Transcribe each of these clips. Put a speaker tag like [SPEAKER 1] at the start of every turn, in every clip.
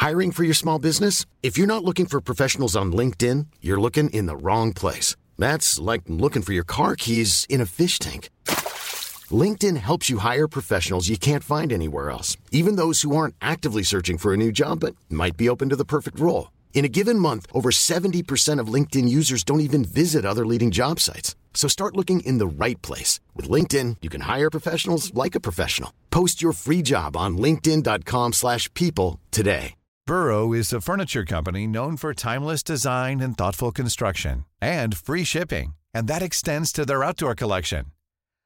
[SPEAKER 1] Hiring for your small business? If you're not looking for professionals on LinkedIn, you're looking in the wrong place. That's like looking for your car keys in a fish tank. LinkedIn helps you hire professionals you can't find anywhere else, even those who aren't actively searching for a new job but might be open to the perfect role. In a given month, over 70% of LinkedIn users don't even visit other leading job sites. So start looking in the right place. With LinkedIn, you can hire professionals like a professional. Post your free job on linkedin.com slash people today.
[SPEAKER 2] Burrow is a furniture company known for timeless design and thoughtful construction and free shipping, and that extends to their outdoor collection.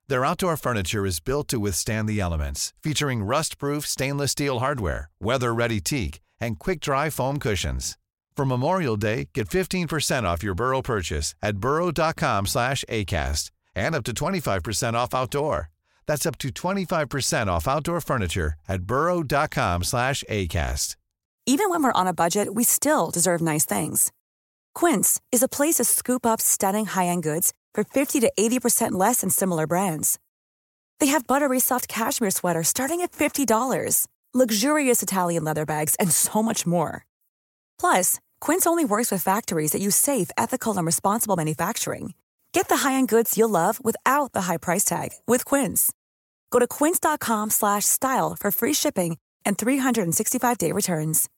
[SPEAKER 2] Their outdoor furniture is built to withstand the elements, featuring rust-proof stainless steel hardware, weather-ready teak, and quick-dry foam cushions. For Memorial Day, get 15% off your Burrow purchase at burrow.com slash ACAST and up to 25% off outdoor. That's up to 25% off outdoor furniture at burrow.com slash ACAST.
[SPEAKER 3] Even when we're on a budget, we still deserve nice things. Quince is a place to scoop up stunning high-end goods for 50 to 80% less than similar brands. They have buttery soft cashmere sweaters starting at $50, luxurious Italian leather bags, and so much more. Plus, Quince only works with factories that use safe, ethical, and responsible manufacturing. Get the high-end goods you'll love without the high price tag with Quince. Go to quince.com slash style for free shipping and 365-day returns.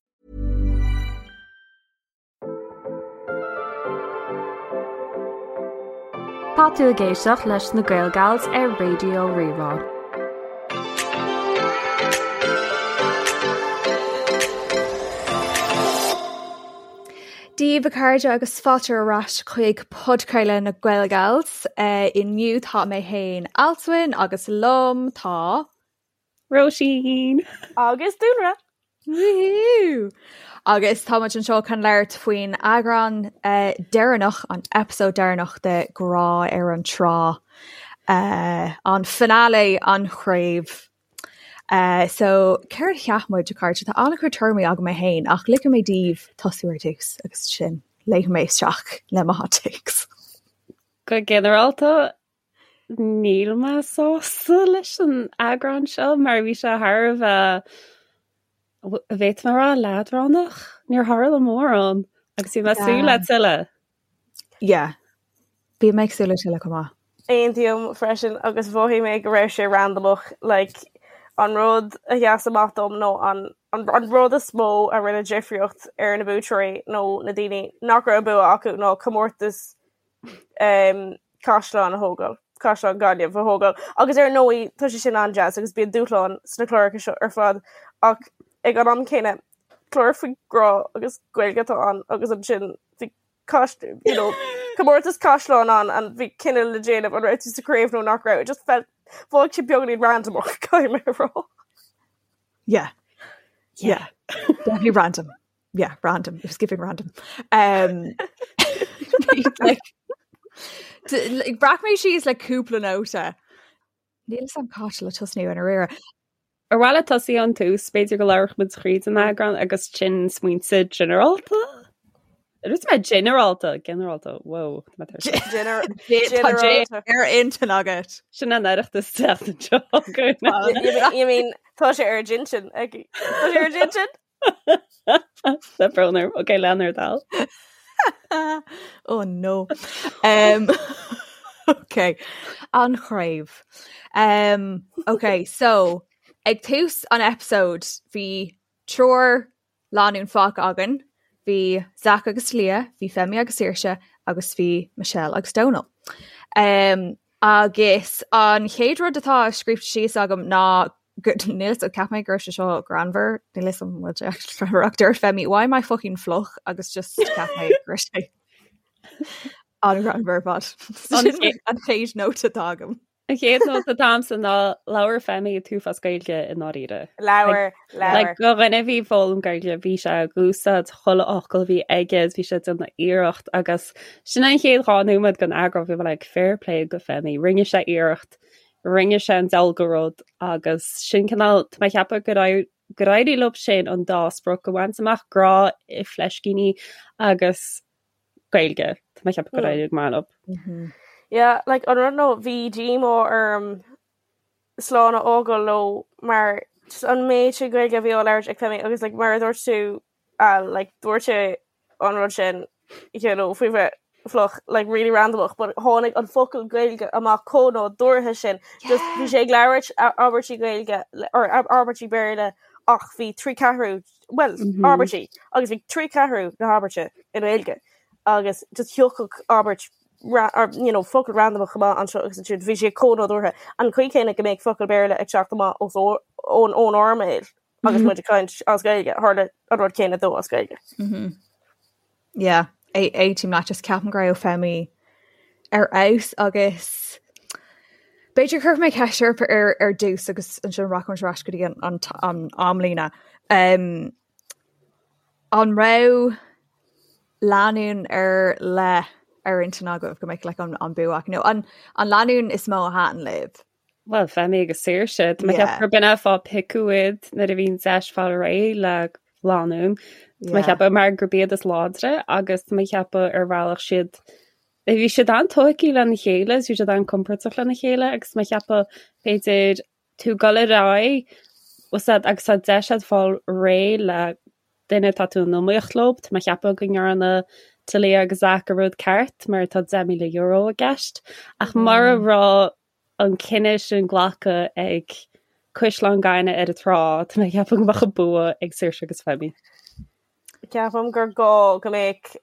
[SPEAKER 4] Tá tú ag éisteacht leis na Gaelgals ar Raidió Rí-Rá.
[SPEAKER 5] Dia daoibh a chairde agus fáilte ar ais chuig podchraoladh na Gaelgals. Inniu tá mé féin Alswyn agus liom tá.
[SPEAKER 6] Róisín!
[SPEAKER 7] Agus Dúlra!
[SPEAKER 5] Woohoo! Agus tá muid anseo chun labhairt faoin eagrán deireanach, an episode deireanach de Grá ar an Trá, an finale, an chraobh. So céard a cheap muid, a chairde? Tá an-chuid tuairimí agam mé féin ach ligfidh mé daoibh tosú ar dtús agus ansin léimfidh mé isteach le mo hot takes.
[SPEAKER 6] Go ginearálta, Níl mé sásta leis an eagrán seo mar bhí sé thar a bheith, bhféadfaidh mé a rá, leadránach. Níor tharla mórán agus bhí mé ag súil le tuilleadh.
[SPEAKER 5] Yeah. Bhí mé ag súil le tuilleadh chomh maith.
[SPEAKER 7] Aontaím freisin agus mhothaigh mé go raibh sé randamach like an rud a sheas amach dom nó an an rud is mó a rinne difríocht ar na buaiteoirí nó na daoine nach raibh bua acu ná comórtas um, caisleán a thógáil, caisleán Gaillimh a thógáil. Agus ar ndóigh tá sé sin an-deas agus bíonn dúshlán sna cláracha seo ar fad ach ag an am céanna clár faoi grá agus Gaeilge atá ann agus ansin bhí you know, comórtas caisleán ann and bhí cinneadh le déanamh an raibh tú sa chraobh nó nach raibh. It just felt bhí sé beagáinín randamach caithfidh mé a rá.
[SPEAKER 5] Yeah. Yeah. Definitely random. yeah, random. It was giving random. Um, like, like, bhreac mé síos le cúpla nóta. Níl a fhios agam cá háit le tosnú i ndáiríre.
[SPEAKER 6] Ar mhaith leat tosaí ón tús, b'fhéidir go labhródh muid thríd an eagrán agus ansin smaointe ginearálta? Dúirt mé ginearálta, ginearálta, wow.
[SPEAKER 5] Tá ar intinn agat.
[SPEAKER 6] Sin an Oireachtas teacht anseo.
[SPEAKER 7] You mean tá sé ar d'intinn aici. Tá sé ar d'intinn?
[SPEAKER 6] Tá brón orm. Ok, lean ar dal.
[SPEAKER 5] Oh no. Um, ok, an chraobh. Um, ok, so ag tús an episode bhí triúr lánúin fágtha againn, bhí Zach agus Leah, bhí Femi agus Saoirse agus bhí Michelle agus Donal. Um, agus an chéad rud atá scríofa síos agam ná Níl a fhios cheap mé go raibh sé seo greannmhar, níl a fhios agam an bhfuil sé actually greannmhar ach dúirt Femi, why am I fucking fliuch agus just cheap mé go raibh sé an-ghreannmhar ar fad. Sin an chéad nóta atá agam.
[SPEAKER 6] An chéad nóta atá agamsa ná labhair Femi an t-uafás Gaeilge i ndáiríre.
[SPEAKER 7] Labhair, labhair.
[SPEAKER 6] Like, do dhuine a bhí ag foghlaim Gaeilge, bhí sé ag úsáid chuile fhocal a bhí aige, bhí sé ag déanamh iarracht agus sin an chéad 2 nóiméad den eagrán bhí mé like fair play go Femi, rinne sé iarracht Rinne sé an diabhal de rud agus sin cineál, tá mé ag ceapadh gur gur éirigh leo sin an dá sprioc a bhaint amach, grá i fleiscíní agus Gaeilge. Tá mé ag ceapadh gur éirigh go maith
[SPEAKER 7] leo. Yeah, like an rud nó bhí díomá orm slán a fhágáil leo mar just an méid sin Gaeilge a bhí á labhairt ag Femi agus like mar a dúirt tú. Al like dúirt sé an rud sin you know faoi bheith fliuch like really randomach but tháinig an focal Gaeilge amach chomh nádúrtha sin just bhí sé ag labhairt abairtí Gaeilge or abairtí Béarla ach bhí 3 ceathrú well abairtí agus bhí 3 ceathrú na habairte i nGaeilge agus just thiocfadh abairt or you know focal randomach amach anseo agus ansiúd bhí sé chomh nádúrtha an chaoi céanna go mbeadh focal Béarla ag teacht amach os ón ón ár mbéal agus muid ag caint as Gaeilge tharla an rud céanna dó as Gaeilge.
[SPEAKER 5] Yeah, aontaím leat just ceapaim go raibh Femi ar fheabhas agus b'fhéidir cuirfidh mé ceist oraibh ar ar dtús agus ansin rachaimid ar ais go dtí an an an amlíne. Um, an raibh lánúin ar leith ar intinn agaibh go mbeadh like, an, an bua acu nó an, an lánúin is mó a thaitin libh?
[SPEAKER 6] Bhuel, Femi agus Saoirse, Tá mé ag ceapadh gurb in é an fáth piocadh iad nuair a bhí an deis fáil réidh le lánúin. Tá mé ag ceapadh mar gurb iad is láidre agus tá mé ag ceapadh ar bhealach siad bhí siad an-tógtha lena chéile, bhí siad an-compordach lena chéile agus tá mé ag ceapadh b'fhéidir tú ag dul ar aghaidh agus tá deis agat fáil réidh le duine atá tú in iomaíocht leo, tá mé ag ceapadh go ndearna Talia agus Zach an rud ceart mar tá €10,000 i gceist ach mura raibh an cinneadh sin glactha ag Caisleán Gainimh ar an trá, tá mé ag ceapadh go mbeadh an bua ag Saoirse agus Femi.
[SPEAKER 7] Ceapaim gur gá go mbeadh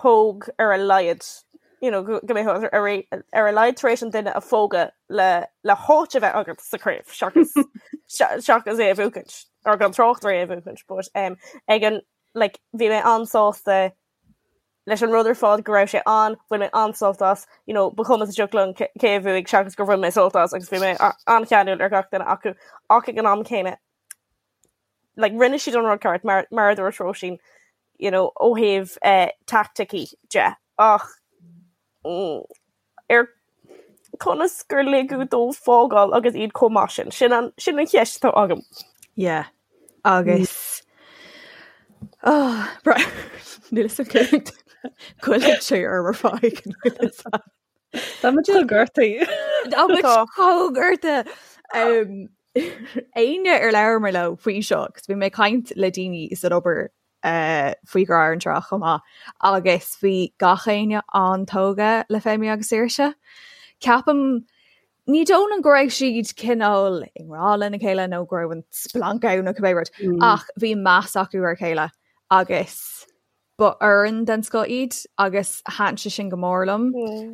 [SPEAKER 7] póg ar a laghad, you know, go mbeadh ar ar a laghad tar éis an duine a phógadh le le háit a bheith agat sa chraobh seachas seachas é a bhuachaint or gan trácht ar é a bhuachaint but um, ag an like bhí mé an-sásta leis an rud ar fad go raibh sé ann, bhain mé an-sult as, you know, ba chuma sa tsioc liom cé a bhuaigh seachas gur bhain mé sult as agus bhí mé an-cheanúil ar gach duine acu ach ag an am céanna like rinne siad an rud ceart mar mar a dúirt Róisín you know ó thaobh eh, taicticí de ach mm, ar conas gur ligeadh dóibh fágáil agus iad chomh maith sin sin an sin an cheist atá agam.
[SPEAKER 5] Yeah. Agus oh, níl a fhios goilleann sé orm ar fad.
[SPEAKER 6] Tá muid gortaithe.
[SPEAKER 5] Tá muid chomh gortaithe. Éinne ar labhair mé leo faoi seo, agus bhí mé ag caint le daoine san obair uh, faoi Ghrá ar an Trá chomh maith, agus bhí gach éinne an-tógtha le Femi agus Saoirse. Ceapaim ní dóigh liom go raibh siad cineál i ngrá lena chéile nó go raibh an splanc ann nó cibé rud, mm. ach bhí meas acu ar a chéile agus Ba fhoireann den scoth iad agus thaitin sé sin go mór liom.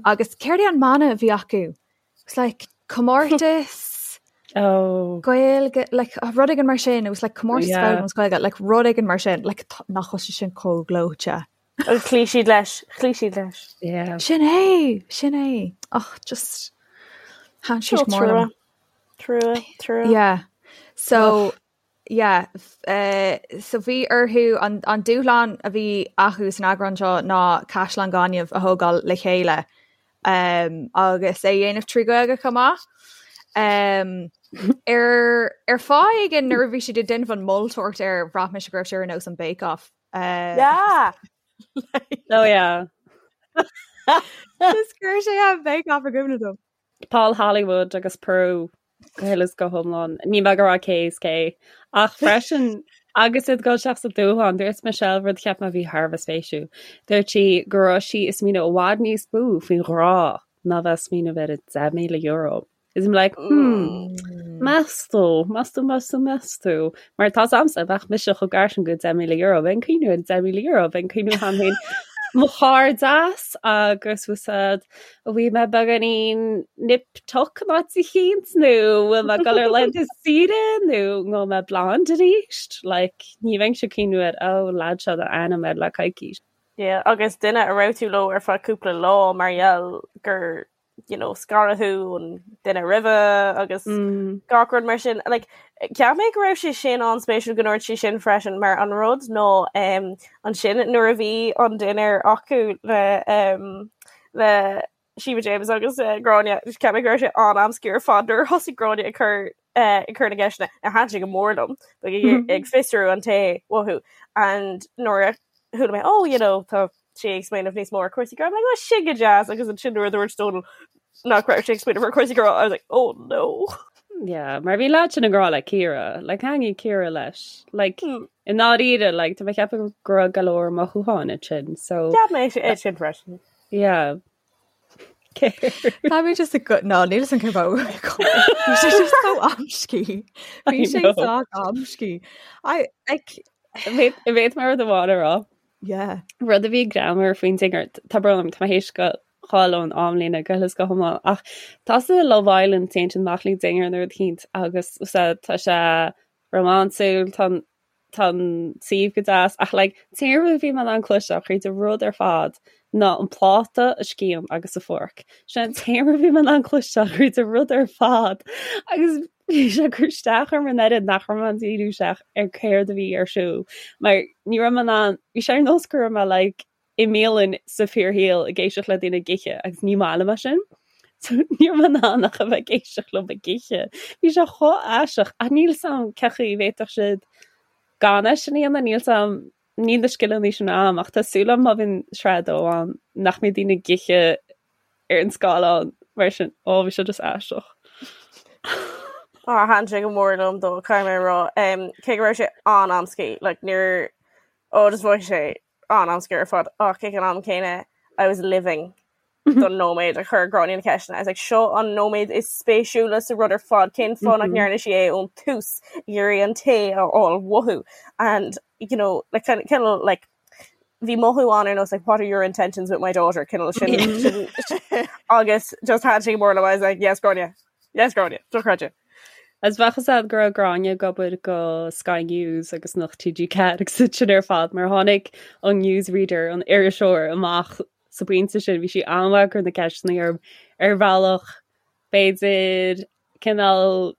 [SPEAKER 5] Agus céard é an mana a bhí acu? It's like comórtas
[SPEAKER 6] oh.
[SPEAKER 5] Gaeilge, like, rud éigin mar sin, it was like comórtas yeah. foghlaim Gaeilge, like rud éigin mar sin, like nach bhfuil sé sin chomh gleoite.
[SPEAKER 7] Agus chloígh siad leis, chloígh siad leis.
[SPEAKER 6] Yeah.
[SPEAKER 5] Sin é, sin é. Ach just thaitin sé go mór liom.
[SPEAKER 7] Trua, trua.
[SPEAKER 5] Yeah. So, Yeah, so bhí orthu an, an dúshlán a bhí acu san eagrán seo ná caisleán gainimh a thógáil le chéile um, agus é a dhéanamh trí Ghaeilge chomh maith. Um, ar, ar fáth éigin nuair a bhí siad ag déanamh an moltóireacht air bhraith mise go raibh sé ar nós an Bake Off.
[SPEAKER 7] Uh, yeah!
[SPEAKER 6] Oh yeah.
[SPEAKER 5] Just chuir sé an Bake Off i gcuimhne dom.
[SPEAKER 6] Paul Hollywood agus Prue go huile is go hiomlán. Níl mé ag rá cé is cé. Ach freisin agus iad ag dul isteach sa dúshlán, dúirt Michelle rud a cheap mé a bhí thar a bheith spéisiúil. Dúirt sí go raibh sí ag smaoineamh i bhfad níos mó faoin ghrá ná bheith ag smaoineamh ar an €10,000. Is I'm like, hmm, meas tú, meas tú, meas tú, meas tú. Mar tá agamsa, bheadh mise chomh gar sin go €10,000, bheinn ag cuimhneamh ar an €10,000, bheinn ag cuimhneamh cheana féin mo chairdeas agus úsáid An bhfuil mé beagáinín nip tuck in áit eicínt nó bhfuil mé ag dul ar laethanta saoire nó ngabhfaidh mé blonde arís? Like, ní bheinnse ag cuimhneamh ar oh lad seo a ainm air le coicís.
[SPEAKER 7] Yeah, agus duine a raibh tú leo ar feadh cúpla lá mar gheall gur you know, scaradh thú ón duine roimhe agus mm. gach rud mar sin. Like, cheap mé go raibh sé sin an-spéisiúil go ndúirt sí sin freisin mar an rud ná um, ansin nuair a bhí an dinnéar acu le um, le Sheba James agus uh, Gráinne cheap mé go raibh sé an-amscaí ar fad nuair a thosaigh Gráinne ag cur uh, ag cur na gceisteanna a thaitin sé go mór liom ag ag fiosrú an té uathu and nuair a chuala mé oh you know tá sé ag smaoineamh níos mó ar cúrsaí grá I'm like oh sin go deas agus ansin nuair a dúirt Dónal nach raibh sé ag smaoineamh ar cúrsaí grá I was like oh no.
[SPEAKER 6] Yeah, mar bhí leaid sin i ngrá le Ciara, like thaitnigh Ciara leis. Like hmm. i ndáiríre, like tá mé ag ceapadh go raibh go leor mothúcháin ansin, so
[SPEAKER 7] Cheap mé é sin freisin.
[SPEAKER 6] Yeah.
[SPEAKER 5] Tá mé just go ná níl an cur Bhí sé just so amscaí. Bhí sé so amscaí. I like
[SPEAKER 6] Bhéad mar rud amháin a rá.
[SPEAKER 5] Yeah.
[SPEAKER 6] Rud a bhí greannmhar faoin dinnéar, tá brón orm, tá mé théis gabháil ón amlíne go huile is go hiomlán ach tá sa Love Island téann siad amach le dinnéar nó rud eicínt agus tá sé rómánsúil, tá tá an suíomh go deas ach like t-aon rud a bhí mé in ann cloisteáil thríd an rud ar fad ná an pláta, an scian agus an fork. Sin an t-aon rud a bhí mé in ann cloisteáil thríd an rud ar fad agus bhí sé ag cur isteach orm an oiread nach raibh mé in ann díriú isteach ar céard a bhí ar siúl mar ní raibh mé in ann, bhí sé ar nós go raibh mé like i mbialann sa fíorshaol ag éisteacht le daoine ag ithe agus ní maith liom é sin. So ní raibh mé in ann ach a bheith ag éisteacht leo ag ithe. Bhí sé chomh aisteach ach níl 's a'm cén chaoi a bhféadfadh siad gan é sin a dhéanamh, níl 's a'm, níl na scileanna sin a'm ach tá súil a'm má bhíonn sraith a dó ann nach mbeidh daoine ag ithe ar an scáileán mar sin. Ó bhí sé just aisteach.
[SPEAKER 7] Á thaitin sé go mór liom dó caithfidh mé a rá. Cé go raibh sé an-amscaí, like níor ó just bhí sé an-amscaí ar fad ach ag an am céanna I was living don nóiméad a chuir Gráinne na ceisteanna. I was like seo an nóiméad is spéisiúla sa rud ar fad cén fáth nach ndearna sí é ón tús ag iarraidh an tae a fháil uathu and you know like kind of like bhí mothú ann ar nós like what are your intentions with my daughter cineál sin sin agus just thaitin sé go mór liom I was like yes Gráinne yes Gráinne dochreidte.
[SPEAKER 6] Is bheadh fhios a'd go raibh Gráinne ag obair go Sky News agus Nuacht TG4 agus iad sin ar fad mar tháinig an newsreader, an iriseoir, amach sa bpointe sin, bhí sí an-mhaith ag cur na ceisteanna orm ar bhealach b'fhéidir cineál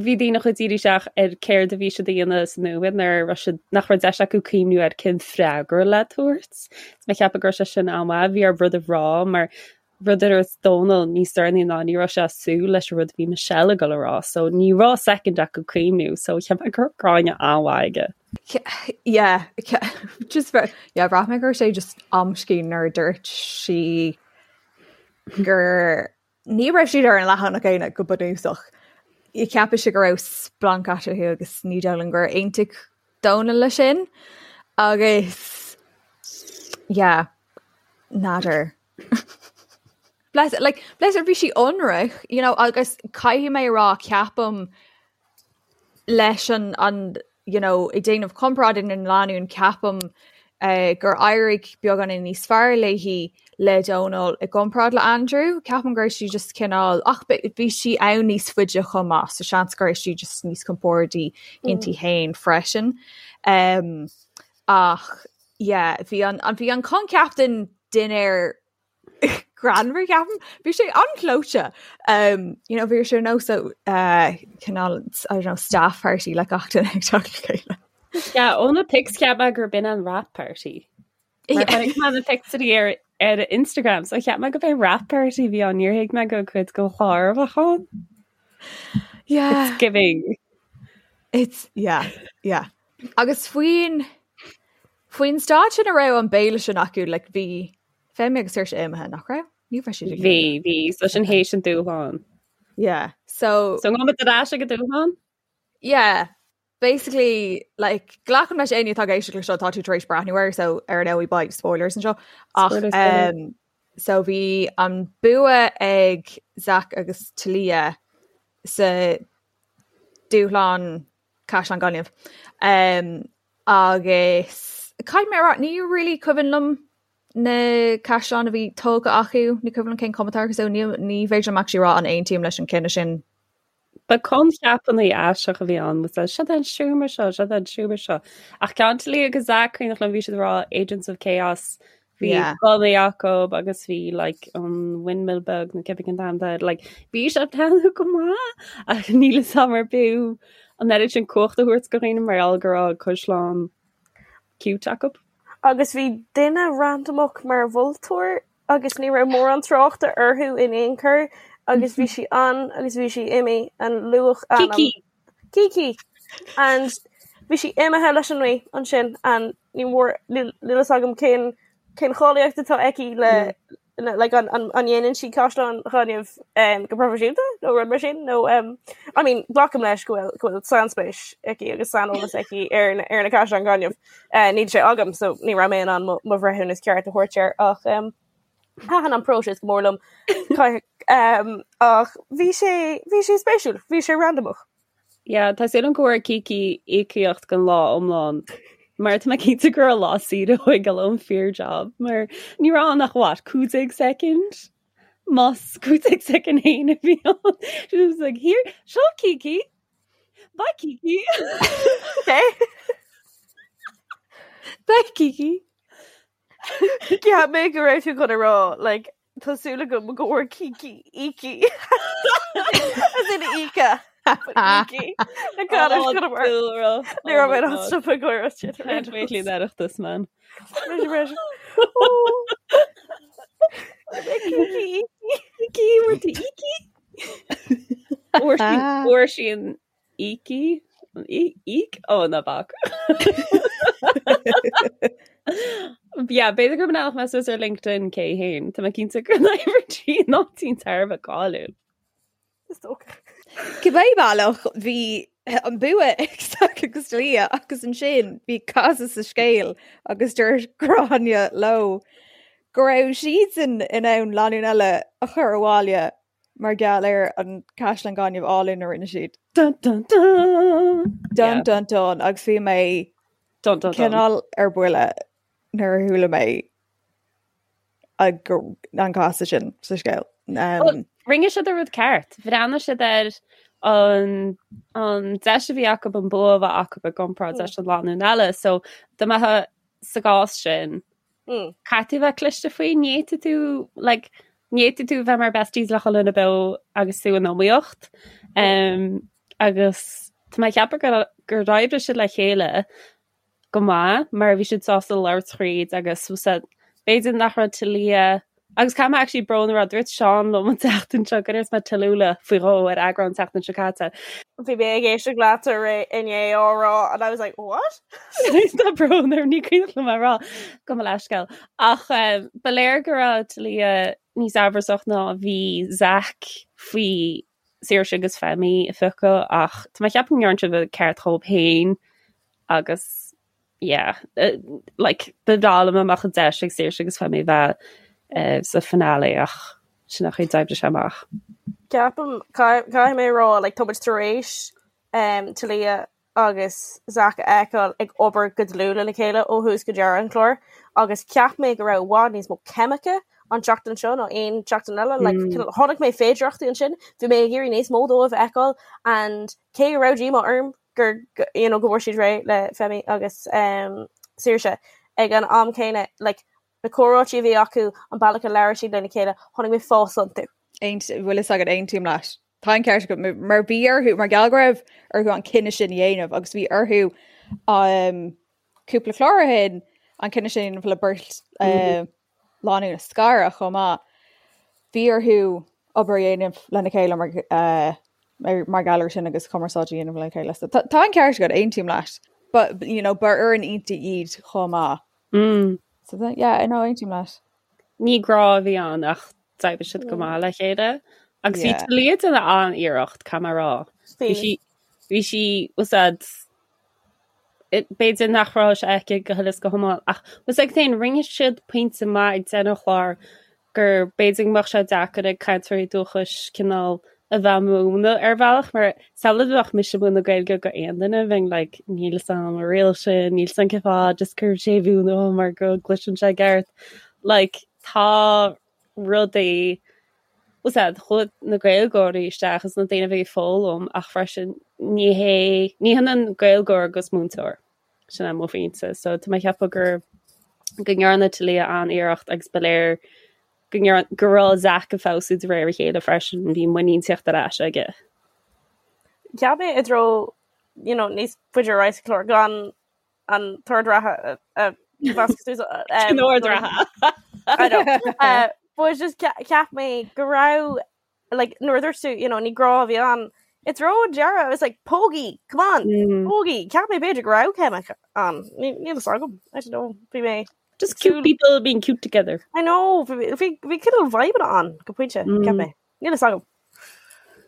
[SPEAKER 6] bhí daoine chomh dírithe isteach ar céard a bhí siad a dhéanamh sa nóiméad nuair a raibh siad nach raibh deis acu cuimhniú ar cén freagra le tabhairt. Is mé ag ceapadh go raibh sé sin an-mhaith, bhí orthu rud a rá mar rud a dúirt Dónal níos deireanaí ná ní raibh sé ag súil leis an rud a bhí Michelle ag dul a rá so ní raibh soicind acu cuimhniú so cheap mé go raibh Gráinne an-mhaith aige.
[SPEAKER 5] Yeah, just yeah, bhraith mé go raibh sé just amscaí nuair a dúirt sí gur ní raibh siad ar an leathanach céanna go bunúsach. Cheap sí go raibh splanc eatarthu agus ní dóigh liom gur aontaigh Dónal leis sin agus yeah, n'fheadar. Bless like bless her bhí sí ionraic, you know, agus caithfidh mé a rá ceapaim leis an an you know, ag déanamh comparáid idir na lánúin ceapaim uh, gur éirigh beagáinín níos fearr léi le Dónal i gcomparáid le Andrew. Ceapaim go raibh sí just cineál ach bhí sí ann níos faide chomh maith, so seans go raibh sí just níos compordaí inti mm. féin freisin. Um, ach yeah, bhí an, an bhí an coincheap den dinnéar greannmhar ceapaim. Bhí sé an-ghleoite. Um, you know, bhí sé nós uh, cineál I don't know, staff party le gach duine ag teacht le
[SPEAKER 6] chéile. Yeah, ó na pics cheap mé gurb in an wrap party. Mar chonaic mé na pictiúirí ar ar Instagram, so cheap mé gurb é wrap party bhí ann, níor thuig mé gur cuid den chlár a bheadh ann.
[SPEAKER 5] Yeah.
[SPEAKER 6] It's giving.
[SPEAKER 5] It's yeah, yeah. Agus faoin faoin staid sin a raibh an béile sin acu like bhí Femi agus Saoirse imithe nach raibh? Ní raibh siad ag
[SPEAKER 6] Bhí, bhí, so sin théis an dúshlán.
[SPEAKER 5] Yeah, so
[SPEAKER 6] So ngabh ar ais ag an dúshlán?
[SPEAKER 5] Yeah, basically like glacaim leis éinne atá ag éisteacht le seo tá tú tar éis breathnú air so ar ndóigh beidh spoilers anseo ach
[SPEAKER 6] Spoilers, spoilers.
[SPEAKER 5] um, so bhí an bua ag Zach agus Talia sa dúshlán Caisleán Gainimh. Um, agus caithfidh mé a rá ní really cuimhin liom na caisleáin a bhí tógtha acu, ní cuimhin liom cén chuma atá orthu so ní ní féidir liom actually rá an aontaím leis an cinneadh sin.
[SPEAKER 6] Ba coincheapanna aisteach a bhí ann, was that, seo an seomra seo, seo an seomra seo. Ach ceann Talia agus Zach cuimhneach liom bhí siad ag rá Agents of Chaos, bhí
[SPEAKER 5] Yeah.
[SPEAKER 6] gunnaí acu agus bhí like an windmill beag nó cibé cén t-ainm atá air, like bhí sé ag breathnú go maith ach níl a fhios agam ar b'fhiú an oiread sin cumhacht a thabhairt do dhaoine mar gheall go raibh caisleán cute acu.
[SPEAKER 7] Agus bhí duine randamach mar mholtóir agus ní raibh mórán tráchta orthu in aon chor agus bhí sí ann agus bhí sí imithe an luach ainm.
[SPEAKER 6] Kiki!
[SPEAKER 7] Kiki! And bhí sí imithe leis an ngaoth ansin and ní mór níl fhios agam cén cén cháilíocht atá aici le mm. Like an an an dhéanann sí caisleáin ghainimh um, go proifisiúnta nó rud mar sin nó um, I mean glacaim leis go bhfuil go bhfuil sainspéis aici agus saineolas aici ar na ar na caisleáin ghainimh. Uh, níl sé agam so ní raibh mé in ann mo mo bhreithiúnas ceart a thabhairt air ach um, thaitin an próiseas go mór liom um, ach bhí sé bhí sé spéisiúil, bhí sé randamach.
[SPEAKER 6] Yeah, tá súil agam go bhfuair Kiki íocaíocht don lá iomlán mar tá mé cinnte go raibh lá saoire uaithi ag dul ón fíor job mar ní raibh ann ach what, 15 soicind? Más 15 soicind féin a bhí ann. She was like, here, seo Kiki. Bye Kiki.
[SPEAKER 7] Okay.
[SPEAKER 5] Bye Kiki.
[SPEAKER 7] Cheap mé go raibh tú chun a rá like tá súil agam go bhfuair Kiki ící as in íce Ící na gan Ní raibh mé in stop ag gáire sin.
[SPEAKER 6] Can't wait leis an Oireachtas man.
[SPEAKER 7] Kiki
[SPEAKER 6] Ící bhfuair tú ící? Fuair sí an Ící? Íc? Ó, ná bac. Yeah, b'fhéidir go mbeadh mé suas ar LinkedIn cé héin. Tá mé cinnte go n-oibríonn sí in áit thar a bheith cáiliúil.
[SPEAKER 7] Is dócha.
[SPEAKER 5] Cibé bealach bhí an bua ag Zach agus Talia agus ansin bhí casadh sa scéal agus dúirt Gráinne leo go raibh siadsan in ann lánúin eile a chur abhaile mar gheall ar an caisleán gainimh álainn a rinne siad.
[SPEAKER 6] Dun dun dun!
[SPEAKER 5] Dun dun dun agus bhí mé
[SPEAKER 6] Dun dun dun.
[SPEAKER 5] cineál ar buile nuair a chuala mé an casadh sin sa scéal.
[SPEAKER 6] Um, Rinne siad an rud ceart. Bhreathnaigh siad ar an an deis a bhí acu an bua a bheith acu i gcomparáid leis an lánúin eile, so dá mbeifeá sa gcás sin
[SPEAKER 7] Mm.
[SPEAKER 6] Caithfidh tú bheith cliste faoi, ní fhéadfaidh tú, like, ní fhéadfaidh tú bheith mar besties le chuile dhuine beo agus tú in iomaíocht. Um, agus tá mé ag ceapadh gur, gur oibrigh siad le chéile go maith mar bhí siad sásta labhairt thríd agus was that b'fhéidir nach raibh Talia agus caithfidh mé actually brón a rá dúirt Seán liom an tseachtain seo go ndúirt mé Tallulah faoi dhó ar eagrán an tseachtain seo caite.
[SPEAKER 7] Bhí mé ag éisteacht leat inné á rá and I was like, what?
[SPEAKER 6] Tá brón orm ní cuimhin liom a rá gabh mo leithscéal. Ach ba léir go raibh Talia níos amhrasach ná a bhí Zach faoi Saoirse agus Femi a phiocadh ach tá mé ag ceapadh go ndearna siad an ceart dhóibh féin agus yeah like ba bhreá liom dá mbeadh an deis ag Saoirse agus Femi bheith sa finale ach sin an chaoi a d'oibrigh sé amach.
[SPEAKER 7] Ceapaim, caithfidh mé a rá, like tá muid tar éis Talia agus Zach a fheiceáil ag obair go dlúth lena chéile ó thús go deireadh an chláir agus cheap mé go raibh i bhfad níos mó ceimice an tseachtain seo ná aon tseachtain eile. Like, mm. chonaic mé féidearthachtaí ansin, bhí mé ag iarraidh níos mó dóibh a fheiceáil and cé go raibh díomá orm gur you know, go bhfuair siad réidh le Femi agus um, Saoirse ag an am céanna like, na comhráití a bhí acu, an bealach a labhair siad lena chéile, chonaic mé fás iontu.
[SPEAKER 5] Bhfuil fhios agat aontaím leat. Tá an ceart agat mar bhí orthu mar gheall go raibh orthu an cinneadh sin a dhéanamh agus bhí orthu um, cúpla clár ó shin an cinneadh sin a dhéanamh le beirt uh, lánúin a scaradh chomh maith. Bhí orthu obair a dhéanamh lena chéile mar, uh, mar, mar gheall air sin agus cumarsáid a dhéanamh lena chéile. So, tá, tá an ceart agat aontaím leat. But you know, ba fhoireann iontach iad chomh maith.
[SPEAKER 6] Mm.
[SPEAKER 5] So that, yeah, I know aontaím leat.
[SPEAKER 6] Ní grá a bhí ann ach d'oibrigh siad go maith le chéile. Agus bhí Talia ag déanamh an-iarracht, caithfidh mé a rá. Bhí sí bhí sí was that b'fhéidir nach raibh sé aici go huile is go hiomlán ach was ag féin rinne siad pointe maith ag deireadh an chláir gur b'fhéidir go mbeadh sé deacair ag cainteoirí dúchais cineál a bheith múineadh ar bhealach mar samhlaigh dá mbeadh mise ag múineadh Gaeilge go aon duine bheinn like níl fhios a'm an riail sin níl fhios a'm cén fáth just cuir séimhiú nó mar go gcloiseann sé i gceart like tá rudaí was that chuaigh na Gaeilgeoirí isteach is na daoine a bhí ag foghlaim ach freisin ní hé ní hionann Gaeilgeoir agus múinteoir sin é mo phointe so tá mé ag ceapadh gur go ndearna Talia an-iarracht agus ba léir go ndearna go raibh Zach ag feabhsú de réir a chéile freisin bhí muinín ag teacht ar ais aige.
[SPEAKER 7] Cheap mé i dtreo you know, níos faide ar aghaidh sa chlár gan an t-ord reatha a mheascadh suas.
[SPEAKER 6] An ord reatha.
[SPEAKER 7] I know. Uh, but just cheap mé go raibh like nuair a dúirt tú you know ní grá a bhí ann i dtreo an deireadh I was like pógaí come on mm. pógaí cheap mé b'fhéidir go raibh ceimic ann níl fhios agam I don't know bhí mé.
[SPEAKER 6] Just cute people being cute together.
[SPEAKER 7] I know, bhí cineál vibe ann go pointe, cheap mé. Níl a fhios agam.